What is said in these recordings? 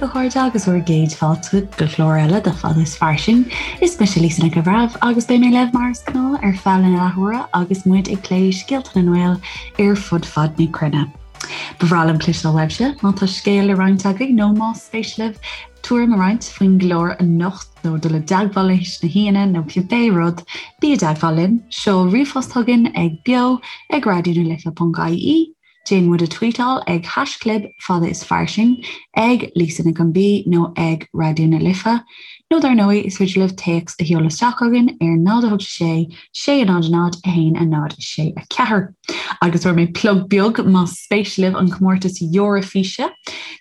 a chairde agus bhur gcéad fáilte go clár eile de Fada is Fairsing. Is mise Lisa Nic an Bhreithimh agus beidh mé libh mar is gnáth ar feadh na leathuaire agus muid ag plé scéalta na nGael ar fud fad na cruinne. Ba bhreá liom cloisteáil uaibhse má tá scéal le roinnt agaibh nó más spéis libh tuairim a roinnt faoin gclár anocht nó dul i dteagmháil leis na haíonna nó cibé rud, bí i dteagmháil linn, seol ríomhphost chugainn ag beo ag raidionalife.ie, déan muid a tweetáil ag haischlib fada is fairsing, ag Lisa Nic an B nó ag Raidió na Life, nó dar ndóigh is féidir libh téacs a sheoladh isteach chugainn ar 0 8 6 6 0 0 1 0 6 4. Agus fuair mé plug beag más spéis libh an comórtas Eoraifíse.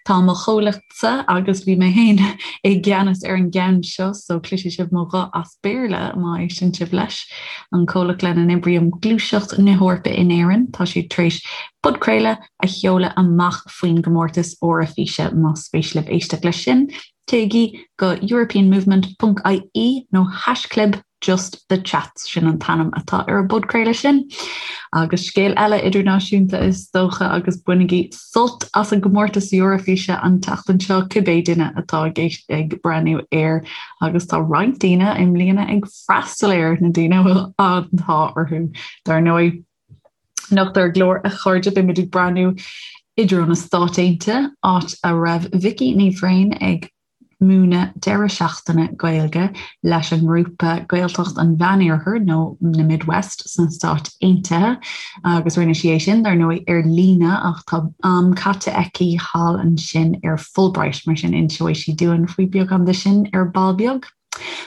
Tá mo chomhlachtsa agus bhí mé féin i gceannas ar an gceann seo so cloisfidh sibh mo ghuth as Béarla má éisteann sibh leis. An comhlacht lena n-oibrím Gluaiseacht na hEorpa in Éirinn, tá siad tar éis podchraoladh a sheoladh amach faoin gcomórtas Eoraifíse más spéis libh éisteacht leis sin. Téigí go europeanmovement.ie nó haischlib Just the Chats, sin an t-ainm atá ar an bpodchraoladh sin. Agus scéal eile idirnáisiúnta is dócha agus bainigí sult as an gcomórtas Eoraifíse an tseachtain seo cibé duine atá ag ag breathnú air agus tá roinnt daoine i mbliana ag freastal air na daoine a bhfuil an t-ádh orthu dar ndóigh. Anocht ar an gclár a chairde beimid ag breathnú i dtreo na Stát Aontaithe, áit a raibh Vicky Ní Bhrain ag múineadh deireadh seachtaine Gaeilge leis an ngrúpa Gaeltacht an Mheánoirthir nó na Midwest sna Stáit Aontaithe agus rinne sí é sin dar ndóigh ar líne ach tá am caite aici thall ansin ar Fulbright mar sin inseoidh sí dúinn faoi beagán de sin ar ball beag.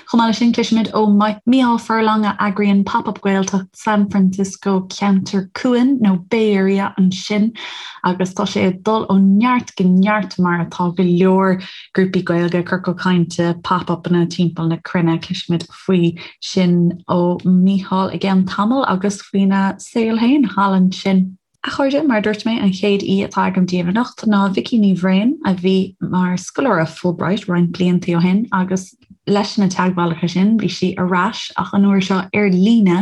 Chomh maith leis sin, cloisfimid ó Mícheál Furlong a eagraíonn Pop Up Gaeltacht San Francisco Ceantar Cuain nó Bay Area ansin agus tá sé ag dul ó neart go neart mar atá go leor grúpaí Gaeilge, ciorcal cainte, pop-upanna timpeall na cruinne. Cloisfimid faoi sin ó Mícheál i gceann tamaill agus faoina saol féin thall ansin. A chairde, mar a dúirt mé, an chéad aoi atá agam daoibh anocht ná Vicky Ní Bhrain, a bhí mar scoláire Fulbright roinnt blianta ó shin agus leis na teagmhálacha sin bhí sí ar ais ach an uair seo ar líne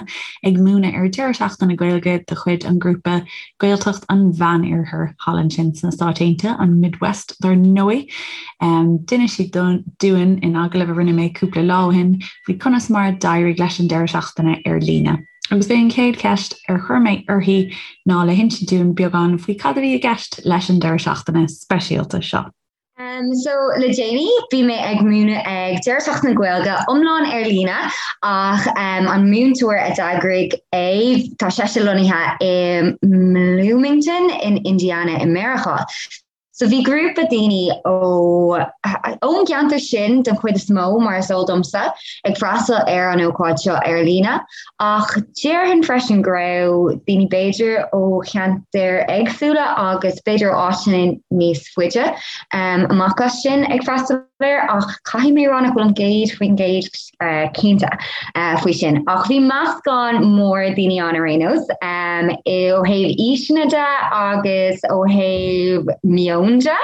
ag múineadh ar deireadh seachtaine Gaeilge de chuid an ghrúpa Gaeltacht an Mheánoirthir thall ansin sna Stáit Aontaithe, an Midwest dar ndóigh. D'inis sí dúinn in agallamh a rinne mé cúpla lá ó shin faoi conas mar a d'éirigh leis an deireadh seachtaine ar líne. Agus b'é an chéad cheist ar chuir mé uirthi ná le hinsint dúinn beagán faoi cad a bhí i gceist leis an deireadh seachtaine speisialta seo. Um, so le déanaí bhí mé ag múineadh ag deireadh seachtaine Gaeilge iomlán ar líne ach um, an múinteoir a d'eagraigh é tá seisean lonnaithe i mBloomington in Indiana i Meiriceá. So bhí grúpa daoine ó ón gceantar sin den chuid is mó, mar is eol domsa, ag freastal ar an ócáid seo ar líne, ach déarfainn freisin go raibh daoine b'fhéidir ó cheantair éagsúla agus b'fhéidir ó áiteanna níos faide amach as sin ag freastal air, ach caithfidh mé a rá nach bhfuilim 100% cinnte faoi sin. Ach bhí meascán mór daoine ann ar aon nós, ó thaobh aoiseanna de agus ó thaobh meon de,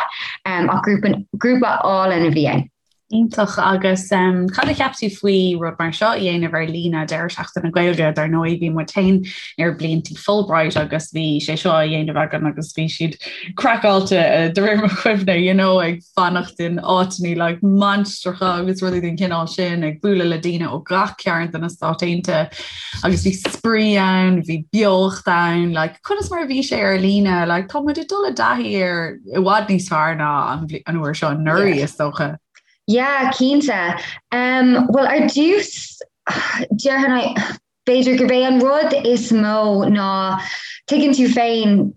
ach grúpa álainn a bhí ann. Iontach. Agus cad a cheap tú faoi rud mar seo a dhéanamh ar líne, deireadh seachtaine Gaeilge? Dar ndóigh bhí muid féin ar blianta Fulbright agus bhí sé seo á dhéanamh againn agus bhí siad craiceáilte de réir mo chuimhne, you know, ag fanacht in áiteanna like mainistreacha agus rudaí den chineál sin, ag bualadh le daoine ó gach cearn de na Stáit Aontaithe agus bhí spraoi ann, bhí beocht ann, like conas mar a bhí sé ar líne, like tá muid ag dul i dtaithí air i bhfad níos fearr ná an uair seo anuraidh is dócha. Yeah, cinnte. Um, well ar dtús déarfainn B'fhéidir gurb é an rud is mó ná, tuigeann tú féin,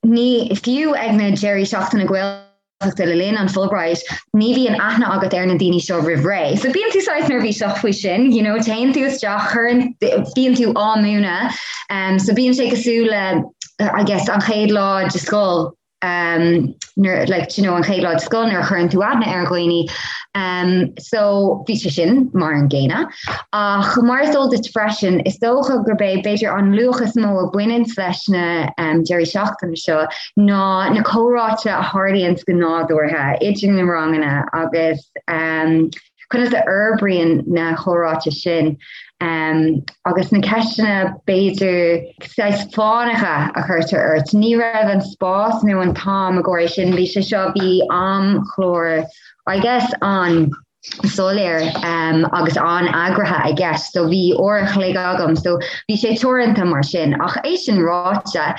ní, fiú ag na deirí seachtaine Gaeltachta le linn an Fulbright, ní bhíonn aithne agat ar na daoine seo roimh ré. So bíonn tú saghas neirbhíseach faoi sin, you know, téann tú isteach, cuireann, bíonn tú á múineadh, um, so bíonn sé cosúil le, I guess, an chéad lá de scoil, um, nuair, like, you know, an chéad lá de scoil nuair a chuireann tú aithne ar dhaoine. Um, so bhí sé sin mar an gcéanna. Ach mar is eol duit freisin, is dócha gurb é b'fhéidir an luach is mó a bhaineann leis na um, deirí seachtaine seo ná na comhráite a tharlaíonn go nádúrtha idir na ranganna agus um, conas a fhorbraíonn na comhráite sin. Agus na ceisteanna b'fhéidir saghas fánacha a chuirtear ort, ní raibh an spás nó an t-am i gcomhair sin, bhí sé seo, bhí amchlár I guess an-soiléir agus an-eagraithe i gceist so bhí uair a chloig agam so bhí sé teoranta mar sin. Ach é sin ráite,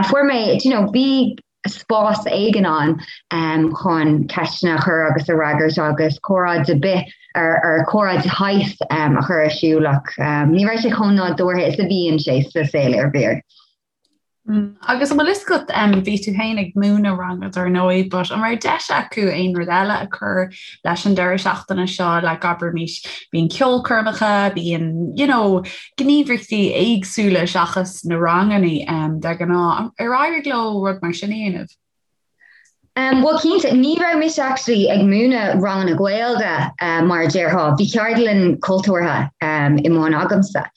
fuair mé, do you know, bhí spás éigin ann chun ceisteanna a chur agus a fhreagairt agus comhrá ar bith ar comhrá de shaghas a chur ar siúl ach ní raibh sé chomh nádúrtha is a bhíonn sé sa saol iarbhír. Mm, agus an bhfuil fhios agat bhí tú féin ag múineadh ranga dar ndóigh, but an raibh deis acu aon rud eile a chur leis an deireadh seachtaine seo like abraimis bíonn ceolchoirmeacha, bíonn you know, gníomhaíochtaí éagsúla seachas na ranganna de ghnáth. Ar éirigh leo rud mar sin a dhéanamh? Um, well cinnte, ní raibh mise actually ag múineadh ranganna Gaeilge uh, mar a déarfá, bhí ceardlann cultúrtha um, i mbun agamsa.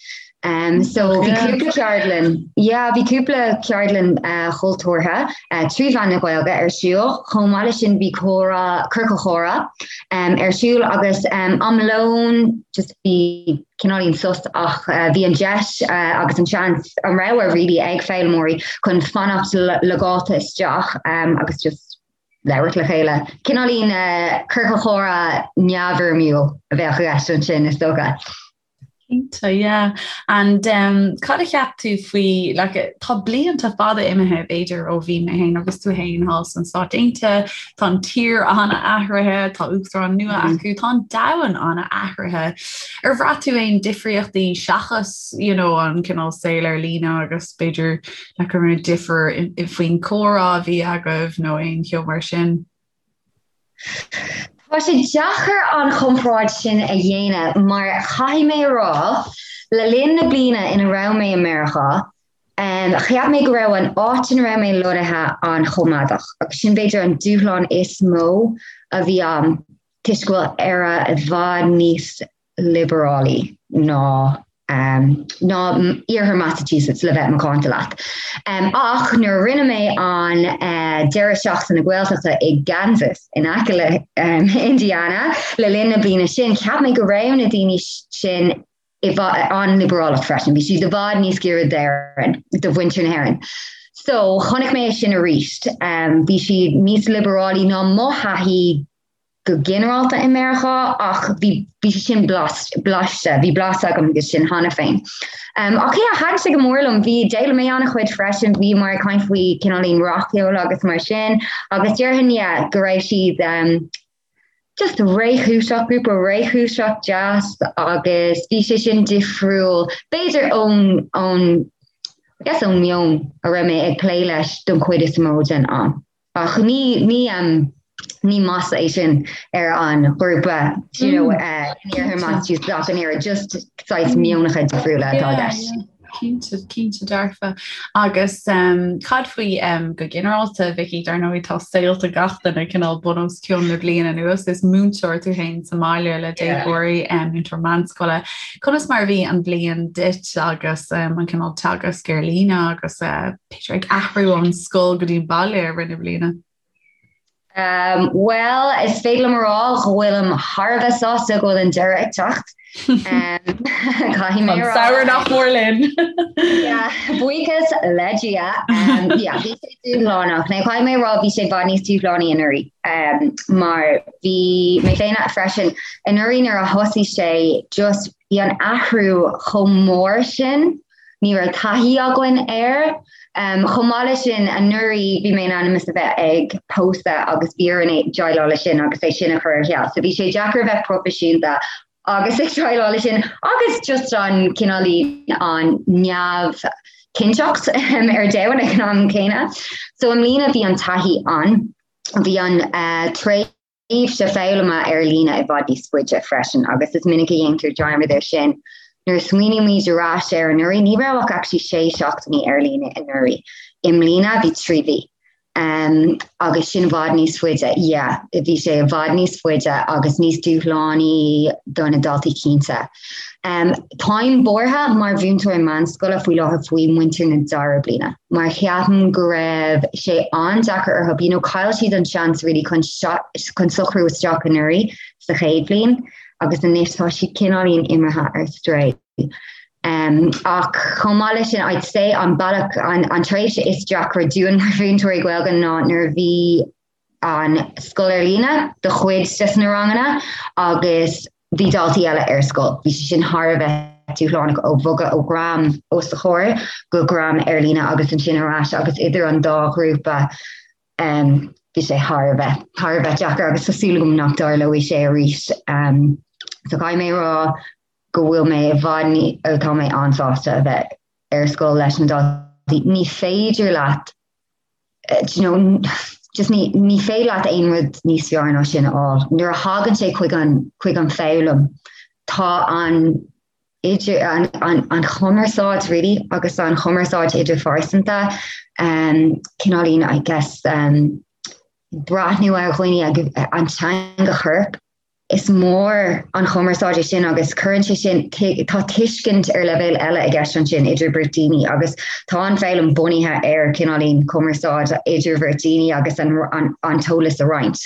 Um, so bhí cúpla ceardlann, yeah, bhí cúpla ceardlann uh, chultúrtha uh, trí mheán na Gaeilge ar siúl, chomh maith leis sin bhí comhrá ciorcal comhrá um, ar siúl agus um, am lóin just bhí cineáilín sos ach bhí an deis agus an seans, an rogha really ag foghlaimeoirí chun fanacht logáilte isteach agus just labhairt le chéile. Cineáilín ciorcal comhrá neamhfhoirmiúil a bheadh i gceist ansin is dócha. Cinnte, yeah. And um, cad a cheap tú faoi, like, tá blianta fada imithe b'fhéidir ó bhí mé féin agus tú féin thall sna Stáit Aontaithe, Tá an tír an-athraithe, tá uachtarán nua mm. acu, tá an domhan an-athraithe. Ar bhraith tú aon difríochtaí seachas you know, an cineál saol ar líne agus b'fhéidir like an raibh difear faoin comhrá a bhí agaibh nó aon cheo mar sin? Tá sé deacair an chomparáid sin a dhéanamh mar caithfidh mé a rá le linn na bliana ina raibh mé i Meiriceá, Cheap mé go raibh an áit ina raibh mé lonnaithe an-choimeádach agus sin b'fhéidir an dúshlán is mó a bhí ann toisc go bhfuil Éire i bhfad níos liobarálaí ná ná iarthar Massachusetts le bheith macánta leat. Ach nuair a rinne mé an deireadh seachtaine Gaeltachta i gCansas in aice le Indiana le linn na bliana sin, cheap mé go raibh na daoine sin i bhfad an-liobarálach freisin, bhí siad i bhfad níos giorra d'Éirinn, do mhuintir na hÉireann. So chonaic mé é sin arís. Bhí siad níos liobarálaí ná mo thaithí go ginearálta i Meiriceá ach bhí bhí sé sin blaiste, bhí blas agam de sin cheana féin. Um, ach yeah, thaitin sé go mór liom, bhí d'fhoghlaim mé an-chuid freisin, bhíomar ag caint faoi cineáilín rac-cheol agus mar sin, agus déarfainn yeah, go raibh siad um, just réchúiseach, grúpa réchúiseach deas agus bhí sé sin difriúil, b'fhéidir ón, ón, I guess ón meon a raibh mé ag plé leis don chuid is mó den am. Ach ní, ní, um, ní masla é sin ar an ghrúpa, you know, mm. uh, in iarthar Massachusetts ach an oiread, just saghas meonacha difriúla atá i gceist. Cinnte, cinnte dearfa. Agus um, cad faoi um, go ginearálta, Vicky, dar ndóigh tá saolta gach duine cineál bun os cionn le bliain anuas, is múinteoir tú féin sa mbaile le déagóirí, um, múinteoir meánscoile. Conas mar a bhí an bhliain duit agus um, an cineál teagasc ar líne agus uh, b'fhéidir ag athrú ón scoil go dtí an baile i rith na bliana? Um, well, is féidir liom a rá go bhfuilim thar a bheith sásta go bhfuil an deireadh ag teacht. Um, caithfidh mé a rá. Samhradh nach mór linn. Yeah, buíochas le Dia. Um, yeah, bhí sé dúshlánach. Now, caithfidh mé a rá bhí sé i bhfad níos dúshlánaí anuraidh. Um, mar bhí mé féin freisin anuraidh nuair a thosaigh sé just bhí an athrú chomh mór sin Ní raibh taithí againn air. Chomh maith leis sin, anuraidh bhí mé in ainm is a bheith ag pósadh agus bhí orainn déileáil leis sin agus é sin a chur ar ceal. So bhí sé deacair a bheith proifisiúnta agus ag déileáil leis sin agus just an cineáilín an neamhchinnteacht ar domhan ag an am céanna. So i mbliana bhí an taithí ann. Bhí an tréimhse tréimhse foghlama ar líne i bhfad níos faide freisin agus is minic a dhéantar dearmad air sin. Nuair a smaoinímid ar ais ar anuraidh, ní raibh ach actually sé seachtainí ar líne anuraidh. I mbliana bhí 3 mhí. Um, agus sin i bhfad níos faide, yeah, bhí sé i bhfad níos faide agus níos dúshlánaí do na daltaí cinnte. Um, táim buartha mar mhúinteoir meánscoile faoi láthair faoi muintir na dara bliana, mar cheapaim go raibh sé an-deacair orthu, you know, chaill siad an seans really chun, chun socrú isteach anuraidh sa chéad bhliain agus anois tá siad cineáilín imithe ar strae. Um, ach chomh maith leis sin I'd say an bealach an, an tréimhse is deacra dúinn mar mhúinteoirí Gaeilge ná nuair a bhí an scoil ar líne do chuid des na ranganna agus bhí daltaí eile ar scoil. Bhí sé sin thar a bheith dúshlánach ó bhogadh ó dhream os do chomhair go dream ar líne agus ansin ar ais agus idir an dá ghrúpa um, bhí sé thar a bheith thar a bheith deacair agus tá súil agam nach dtarlóidh sé arís. Um, so caithfidh mé rá go bhfuil mé i bhfad ní tá mé an-sásta a bheith ar scoil leis na daltaí. Ní féidir leat do you know, just ní, ní féidir leat aon rud níos fearr ná sin a fháil. Nuair a thagann sé chuig an, chuig an foghlaim, tá an idir an, an, an chumarsáid really agus an chumarsáid idirphearsanta um, cineáilín I guess um, breathnú ar dhaoine agus an teanga choirp Is mór an chumarsáid é sin agus cuireann sé sin, tá tuiscint ar leibhéal eile i gceist ansin idir beirt daoine agus tá an foghlaim bunaithe ar cineáilín cumarsáid idir bheirt daoine agus an, an, an t-eolas a roinnt.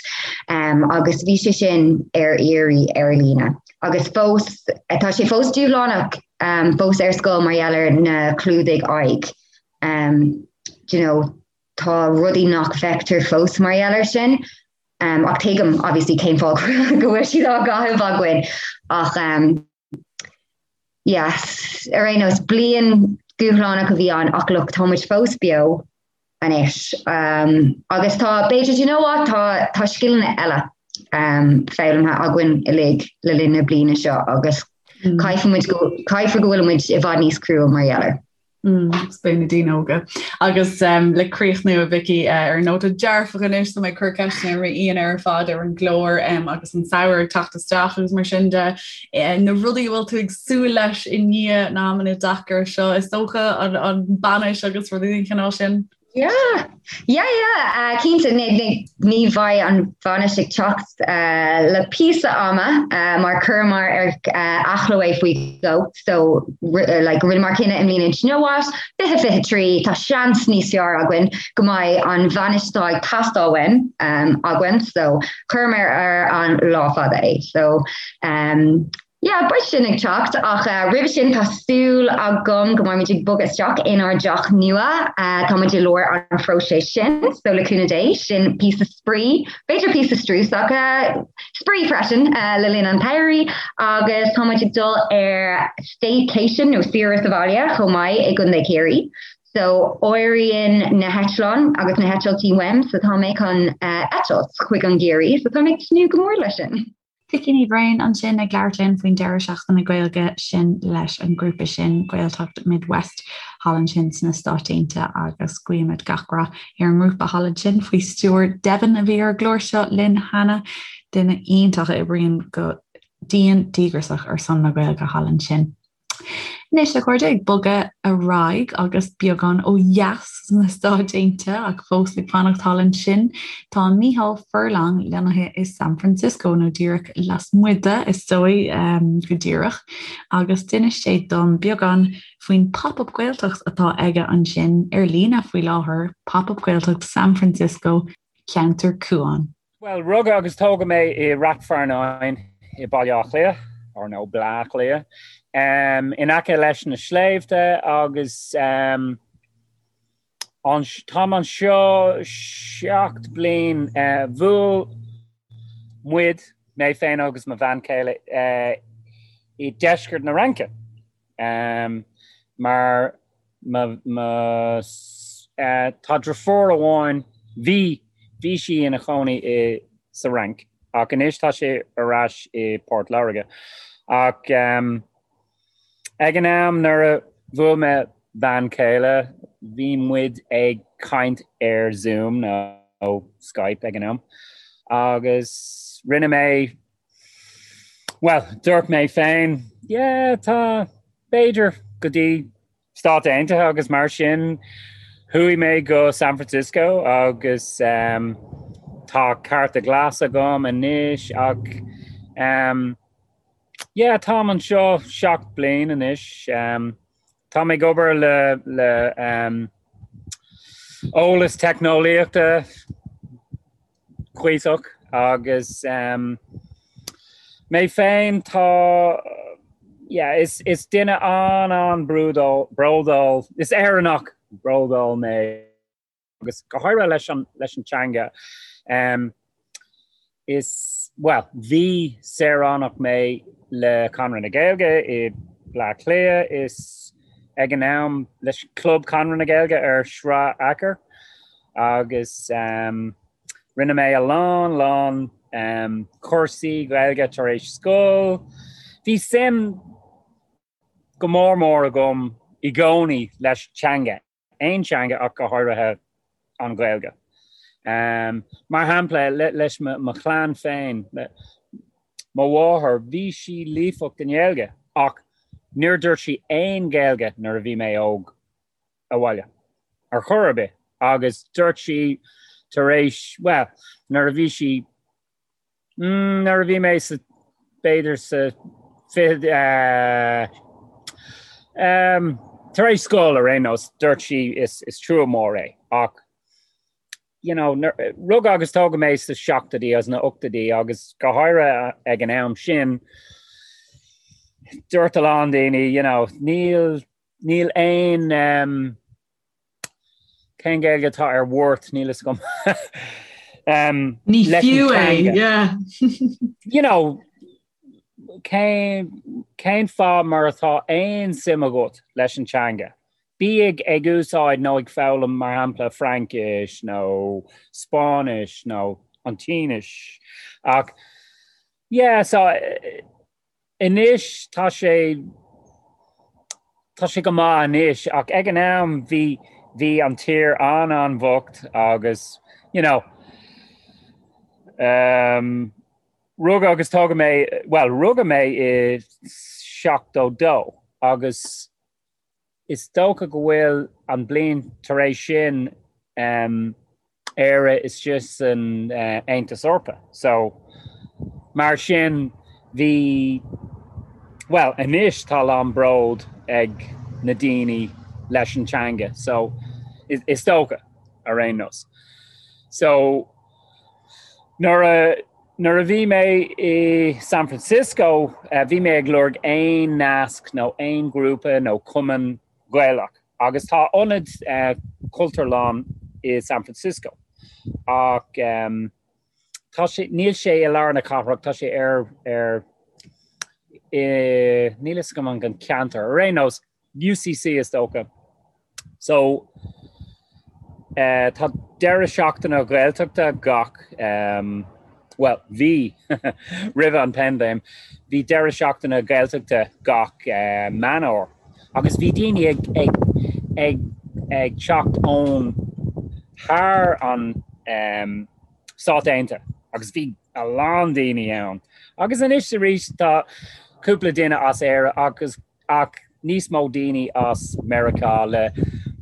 Um, agus bhí sé sin ar iarraidh ar líne. Agus fós, tá sé fós dúshlánach um, fós ar scoil mar gheall ar na clúdaigh aghaidh. Um, do you know, tá rudaí nach bhfeictear fós mar gheall ar sin. Um, ach tuigim obviously cén fáth go bhfuil siad á gcaitheamh againn ach um, yes, ar aon nós bliain dúshlánach a bhí ann ach look tá muid fós beo anois. Um, agus tá b'fhéidir you know what, tá, tá scileanna eile um, foghlamtha againn uilig le linn na bliana seo agus mm. caithfidh muid go caithfear go bhfuil muid i bhfad níos crua mar gheall air. Agus beidh na daoine óga. Agus le críochnú a Vicky ar nóta dearfach anois tá mé ag cur ceisteanna ar m'aíonna ar fad ar an gclár agus an samhradh ag teacht isteach agus mar sin de na rudaí a bhfuil tú ag súil leis i ndiaidh na amanna deacair seo is dócha an bainis agus rudaí den chineál sin. Yeah, yeah, yeah, uh, cinnte ní, ní, ní bheidh an bhainis ag teacht uh, le píosa ama uh, mar chuireamar ar uh, athló é faoi dhó so uh, like, rinneamar cinneadh i mbliana you know what 2023 tá seans níos fearr againn go mbeidh an bhainis atá ag teastáil uainn um, againn so chuireamar ar an lá fada é so um, Yeah, beidh sin ag teacht ach roimhe sin tá súil agam go mbeidh muid ag bogadh isteach inár dteach nua. Tá muid i lár an phróiseas sin, so le cúnamh Dé, sin píosa spraoi, b'fhéidir píosa struis ach spraoi freisin le linn an tsamhraidh agus tá muid ag dul ar staycation nó saoire sa bhaile chomh maith i gContae Chiarraí. So éiríonn na heitleáin agus na heitiltí uaim so tá mé chun eitilt chuig an gCiarraí so tá mé ag tnúth go mór leis sin. Vicky Ní Bhraoin ansin ag labhairt linn faoin deireadh seachtaine Gaeilge sin leis an ngrúpa sin, Gaeltacht Midwest, thall ansin sna Stáit Aontaithe agus guímid gach rath ar an ngrúpa thall ansin faoi stiúir Devin a bhí ar an gclár seo linn cheana, duine iontach a oibríonn go dian díograiseach ar son na Gaeilge thall ansin. Anois, a chairde, ag bogadh ar aghaidh agus beagán ó dheas sna Stáit Aontaithe ach fós ag fanacht thall ansin, tá Mícheál Furlong lonnaithe i San Francisco, nó díreach lasmuigh de, is dóigh, go díreach, agus d'inis sé dom beagán faoin Pop-Up Gaeltacht atá aige ansin ar líne faoi láthair, Pop-Up Gaeltacht San Francisco, Ceantar Cuain. Bhuel, rugadh agus tógadh mé i Rath Fearnáin i Baile Átha Cliath, or nó Bleá Cliath, in aice leis na sléibhte agus táim anseo 7 bliain. Bhuail muid, mé féin agus mo bhean chéile, i deisceart na Fhraince. Mar mo tá deirfiúr amháin, bhí, bhí sí ina chónaí i sa Fhrainc ach anois tá sí ar ais i Port Láirge. Ach ag an am nuair a bhuail mé bean chéile, bhí muid ag caint ar Zoom nó Skype ag an am agus rinne mé Bhuel, dúirt mé féin, yeah, tá, b'fhéidir, go dtí Stáit Aontaithe agus mar sin chuaigh mé go San Francisco agus um, tá cárta glas agam anois ach um, yeah, táim anseo 7 bliain anois. Um, tá mé ag obair le, le um, eolas teicneolaíochta cuíosach agus mé féin tá. Yeah, is, is duine an-an-bhródúil, is Éireannach bródúil mé agus go háirithe leis an, leis an teanga. Um, is, well, bhí saoránach mé le Conradh na Gaeilge i Bleá Cliath is ag an am leis Club Conradh na Gaeilge ar Shráid Fheachair agus um, Rinne mé a lán, lán cúrsaí Gaeilge tar éis scoil. Bhí suim go mór mór agam i gcónaí leis teanga, aon teanga ach go háirithe an Ghaeilge. Mar shampla, leis mo chlann féin, mo mháthair, bhí sí líofacht i nGaeilge ach níor dúirt sí aon Ghaeilge nuair a bhí mé óg. abhaile ar chor ar bith agus dúirt sí tar éis, bhuel, nuair a bhí sí, mm, nuair a bhí mé sa, b'fhéidir sa fiche, eh, em, tar éis scoil ar aon nós, dúirt sí is, is trua mór é ach, you know, rugadh agus tógadh mé sa seachtóidí agus na ochtóidí agus go háirithe ag an am sin, dúirt a lán daoine, you know, níl Níl aon cén Gaeilge atá ar worth, níl fhios agam. Ní fiú é, yeah. You know, cén, cén fáth mar atá aon suim agat leis an teanga? Bí ag ag úsáid nó ag foghlaim mar shampla Fraincis nó Spáinnis nó an tSínis. Ach yeah, so Anois tá sé, tá sé go maith anois ach ag an am bhí, bhí an tír an-an-bhocht agus you know um, rugadh agus tógadh mé, bhuel rugadh mé i 72 agus Is dócha go bhfuil an bliain tar éis sin Éire istigh san Aontas Eorpach. So, mar sin, bhí, bhuel, anois tá a lán bród ag na daoine leis an teanga. So, is dócha, ar aon nós. So, nuair a, nuair a bhí mé i San Francisco, bhí mé ag lorg aon nasc nó aon ghrúpa nó cumann Gaelach agus tá ionad Cultúrlann i San Francisco ach tá sé, níl sé i lár na cathrach, tá sé ar, ar, i, níl fhios agam an ceantar, ar aon nós, UCC is dócha. So tá deireadh seachtaine Gaeltachta gach, bhuel, bhí, roimhe an paindéim, bhí deireadh seachtaine Gaeltachta gach Meán Fhómhair agus bhí daoine ag, ag, ag, ag teacht ón thar an Stát Aontaithe agus bhí a lán daoine ann. Agus anois arís tá cúpla duine as Éire agus ach níos mó daoine as Meiriceá le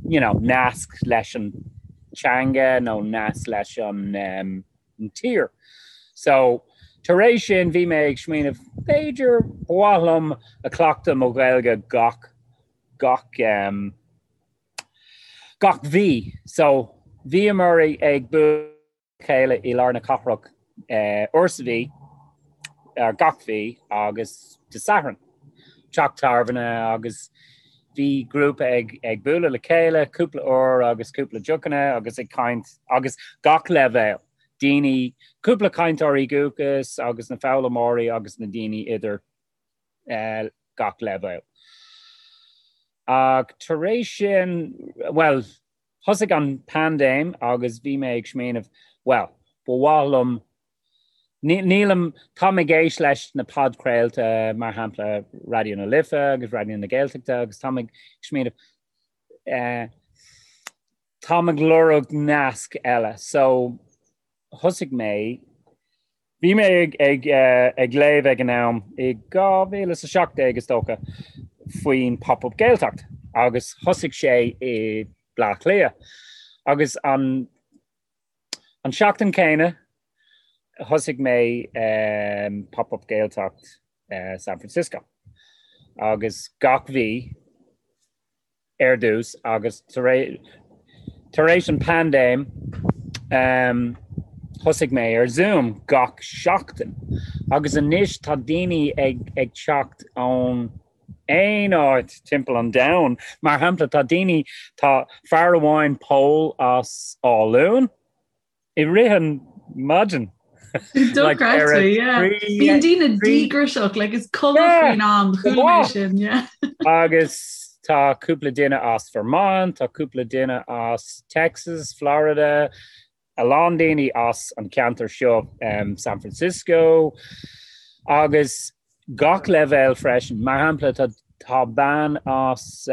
you know nasc leis an teanga nó nasc leis an um, an tír. So tar éis sin bhí mé ag smaoineamh b'fhéidir ba mhaith liom a cleachtadh mo Ghaeilge gach gach um, gach mhí. So bhíomar ag bualadh chéile i lár na cathrach uair sa mhí, gach mhí, agus Dé Sathairn, teach tábhairne agus bhí grúpa ag ag bualadh le chéile cúpla uair agus cúpla deochanna agus ag caint agus gach leibhéal, daoine, cúpla cainteoirí dúchais agus na foghlaimeoirí agus na daoine idir gach leibhéal. Ach tar éis sin, bhuel, Thosaigh an paindéim agus bhí mé ag smaoineamh, bhuel, ba mhaith liom, nílim, táim ag éist leis na podchraolta, mar shampla Raidió na Life agus Raidió na Gaeltachta agus táim ag smaoineamh, eh, táim ag lorg nasc eile. So, thosaigh mé, bhí mé ag, ag, ag léamh ag an am i 2017 is dócha faoin Pop-Up Gaeltacht agus thosaigh sé i Bleá Cliath agus an, an seachtain céanna thosaigh mé um, Pop-Up Gaeltacht uh, San Francisco agus gach mhí ar dtús agus tar éis an paindéim thosaigh mé ar Zoom gach seachtain agus anois tá daoine ag ag teacht ón. aon áit timpeall an domhain. Mar shampla, tá daoine, tá fear amháin, Pól as Áth Luain, i rith an maidin. Dochreidte, yeah. Bíonn daoine díograiseach, like is cuma faoin am, chuala mé sin, yeah. Agus tá cúpla duine as Vermont, tá cúpla duine as Texas, Florida, a lán daoine as an ceantar seo, San Francisco, agus gach leibhéal freisin. Mar shampla, tá tá bean as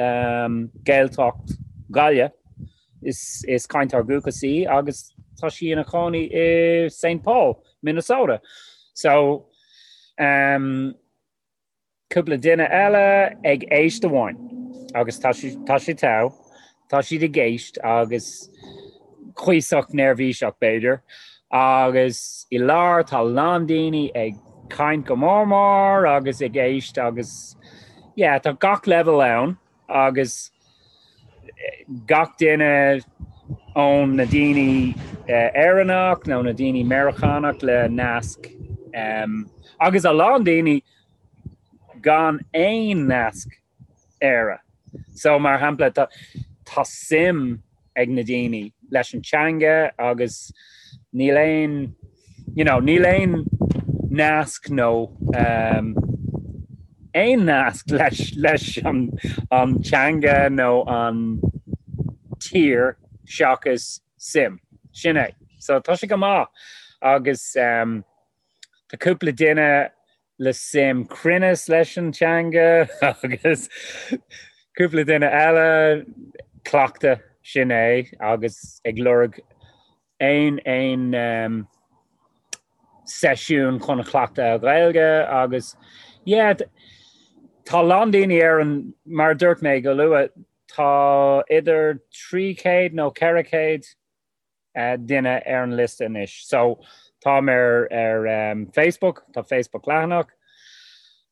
Gaeltacht Ghaillimh, is is cainteoir dúchais í agus tá sí ina cónaí i Saint Paul, Minnesota. So um, Cúpla duine eile ag éist amháin agus tá tá sé togha, tá siad ag éist agus cuíosach neirbhíseach b'fhéidir agus i lár tá a lán daoine ag caint go mór mór agus ag éist agus yeah tá gach leibhéal ann agus gach duine ón na daoine Éireannach nó na daoine Meiriceánach le nasc agus a lán daoine gan aon nasc Éire. So mar shampla tá tá suim ag na daoine leis an teanga agus níl aon you know, níl aon nasc nó um, aon nasc leis leis an, an teanga nó an tír seachas suim. Sin é. So tá sé go maith agus um, tá cúpla duine le suim cruinneas leis an teanga agus cúpla duine eile cleachtadh sin é agus ag lorg aon aon um, seisiún chun cleachtadh Gaeilge agus yeah, tá a lán daoine ar an mar a dúirt mé go luath tá idir 300 nó 400 duine ar an liosta anois. So táim ar ar um, Facebook, tá Facebook leathanach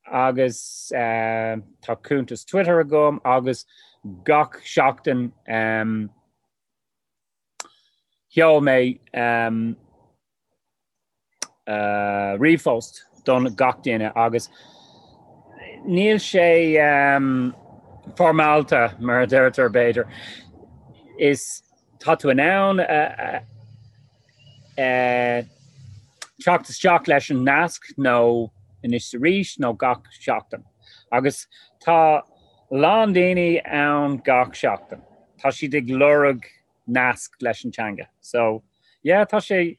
agus uh, tá cuntas Twitter agam agus gach seachtain um, sheol mé um, ríomhphost don gach duine agus níl sé foirmeálta mar a deirtear b'fhéidir. Is tá tú in ann teacht isteach leis an nasc nó anois arís nó gach seachtain. Agus tá a lán daoine ann gach seachtain. Tá siad ag lorg nasc leis an teanga. So yeah tá sé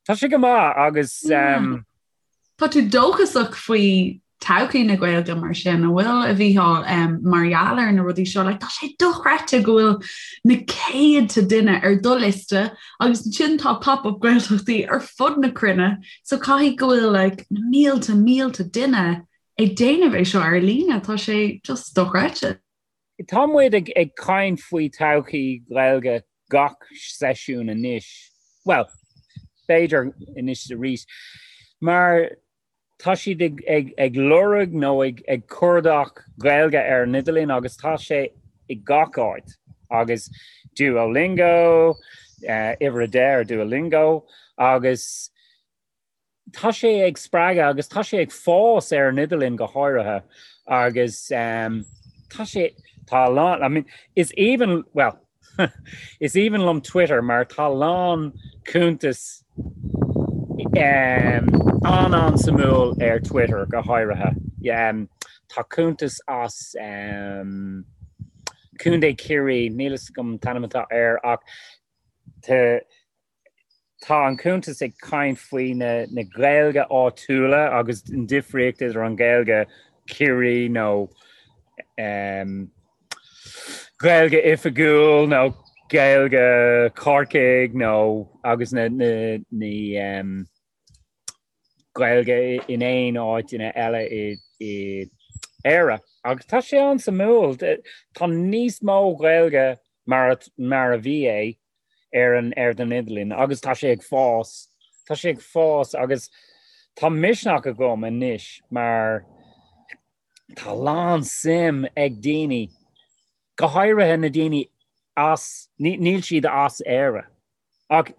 tá sé go maith agus um, Tá tú dóchasach faoi todhchaí na Gaeilge mar sin an bhfuil a Mhícheáil um, mar gheall ar na rudaí seo like, tá sé dochreidte go bhfuil na céadta duine ar do liosta agus ansin tá pop-up Gaeltachtaí ar fud na cruinne so caithfidh go bhfuil like, na mílte mílte duine ag déanamh é seo ar líne tá sé just dochreidte. Tá muid ag caint faoi todhchaí Ghaeilge gach seisiún anois, bhuel, b'fhéidir anois arís, mar tá siad ag lorg nó ag cuardach Gaeilge ar an idirlíon agus tá sé i gach áit agus Duolingo, uimhir a 10 ar Duolingo agus tá sé ag spreagadh agus tá sé ag fás ar an idirlíon go háirithe agus um, tá sé tá a lán I mean, is aoibhinn well is aoibhinn liom Twitter mar tá a lán cuntas um, an-an-suimiúil ar Twitter go háirithe. Um, tá cuntas as um, Contae Ciarraí níl a fhios agam an t-ainm atá air ach tá Tá an cuntas ag caint faoi na na Gaeilge áitiúla agus an difríocht idir an Ghaeilge Ciarraí nó um, Gaeilge oifigiúil nó Gaeilge Corcaigh nó agus na, na, na um, Gaeilge in aon áit ina eile i i Éire. Agus tá sé an-suimiúil. Tá níos mó Gaeilge mar mar a bhí é ar an ar an idirlíon agus tá sé ag fás. Tá sé ag fás agus tá misneach agam anois mar tá a lán suim ag daoine, go háirithe na daoine as níl siad as Éire. Ach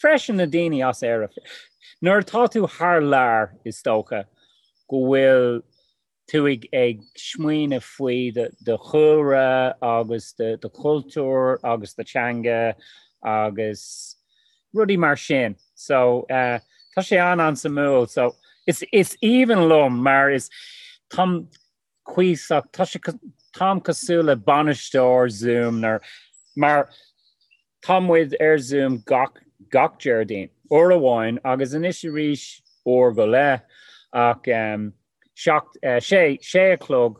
freisin na daoine as Éire. Nuair atá tú thar lear is dócha go bhfuil tú ag ag smaoineamh faoi do chúlra agus do chultúr agus do teanga agus rudaí mar sin. So uh, tá sé an an-suimiúil so is is aoibhinn liom mar is táim cuíosach tá sé táim cosúil le bainisteoir Zoom nar mar tá muid ar Zoom gach gach Déardaoin uair amháin agus anois arís uair go leith ach um, seacht, uh, sé sé a chlog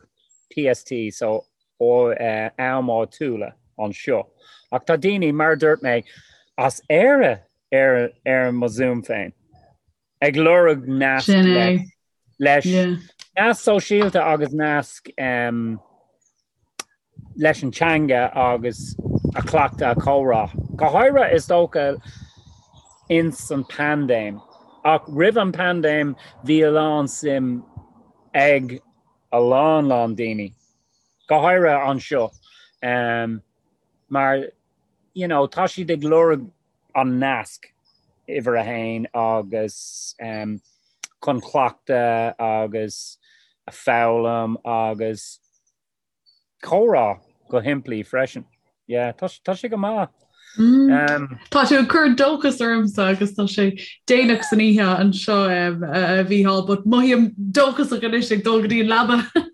PST so ó uh, am áitiúla anseo. Ach tá daoine mar dúirt mé as Éire ar ar mo Zoom féin. Ag lorg nasc Sin é. leis Yeah. nasc sóisialta agus nasc um, leis an teanga agus a chleachtadh a comhrá. Go háirithe is dócha ins an paindéim. Ach roimh an paindéim bhí a lán suim ag a lán lán daoine. Go háirithe anseo. Um, mar you know, tá siad ag lorg an nasc uimhir a haon agus um, chun cleachtadh agus a foghlaim agus comhrá go shimplí freisin. Yeah, tá, tá sé go maith. Mm. Um, tá tú ag cur dóchas ormsa agus tá sé déanach san oíche anseo um, a Mhícheáil, but mothaím dóchasach anois ag dul go dtí an leaba.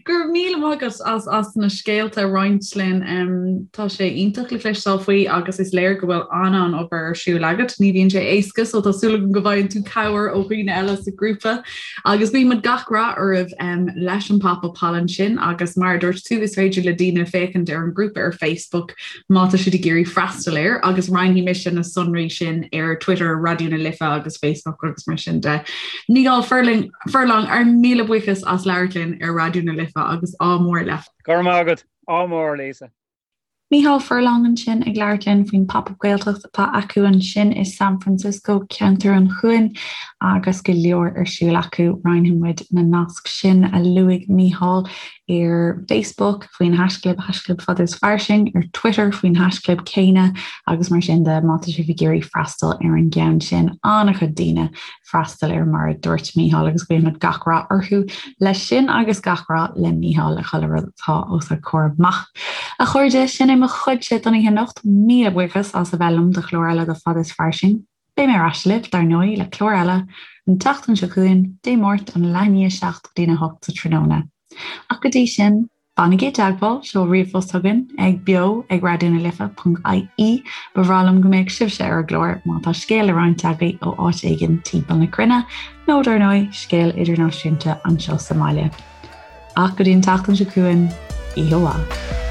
Go raibh míle maith agat as as na scéalta a roinnt linn. Um, tá sé iontach le cloisteáil faoi agus is léir go bhfuil an-an-obair ar siúl agat. Ní bhíonn sé éasca so tá súil agam go bhfaigheann tú cabhair ó dhaoine eile sa grúpa. Agus guímid gach rath oraibh um, leis an pop-up thall ansin agus mar a dúirt tú is féidir le daoine féachaint ar an grúpa ar Facebook má tá siad ag iarraidh freastal air agus roinnfidh mise na sonraí sin ar Twitter, Raidió na Life agus Facebook agus mar sin de. Mícheál Furlong, Furlong ár míle buíochas as labhairt linn ar Raidió na Life agus ádh mór leat. Go raibh maith agat. Ádh mór, Lisa. Mícheál Furlong ansin ag labhairt linn faoin Pop-Up Gaeltacht atá acu ansin i San Francisco, ceantar an Chuain, agus go leor ar siúl acu. Roinnfidh muid na naisc sin a luaigh Mícheál ar Facebook faoin haischlib haischlib fada is fairsing, ar Twitter faoin haischlib céanna agus mar sin de má tá sibh ag iarraidh freastal ar an gceann sin. An-chuid daoine freastal air mar a dúirt Mícheál agus guímid gach rath orthu leis sin agus gach rath le Mícheál le chuile rud atá os a chomhair amach. A chairde, sin é mo chuidse don oíche anocht. Míle buíochas as a bheith liom do chlár eile de Fada is Fairsing. Beidh mé ar ais libh, dar ndóigh, le clár eile an tseachtain seo chugainn, Dé Máirt ón leath i ndiaidh a 7 go dtína 8 sa tráthnóna. Ach go dtí sin, Fanaigí i dteagmháil, seol ríomhphost chugainn ag beo ag raidionalife.ie. Ba bhreá liom go mbeadh sibhse ar an gclár má tá scéal le roinnt agaibh ó áit éigin timpeall na cruinne, nó dar ndóigh, scéal idirnáisiúnta anseo sa mbaile. Ach go dtí an tseachtain seo chugainn, oíche mhaith.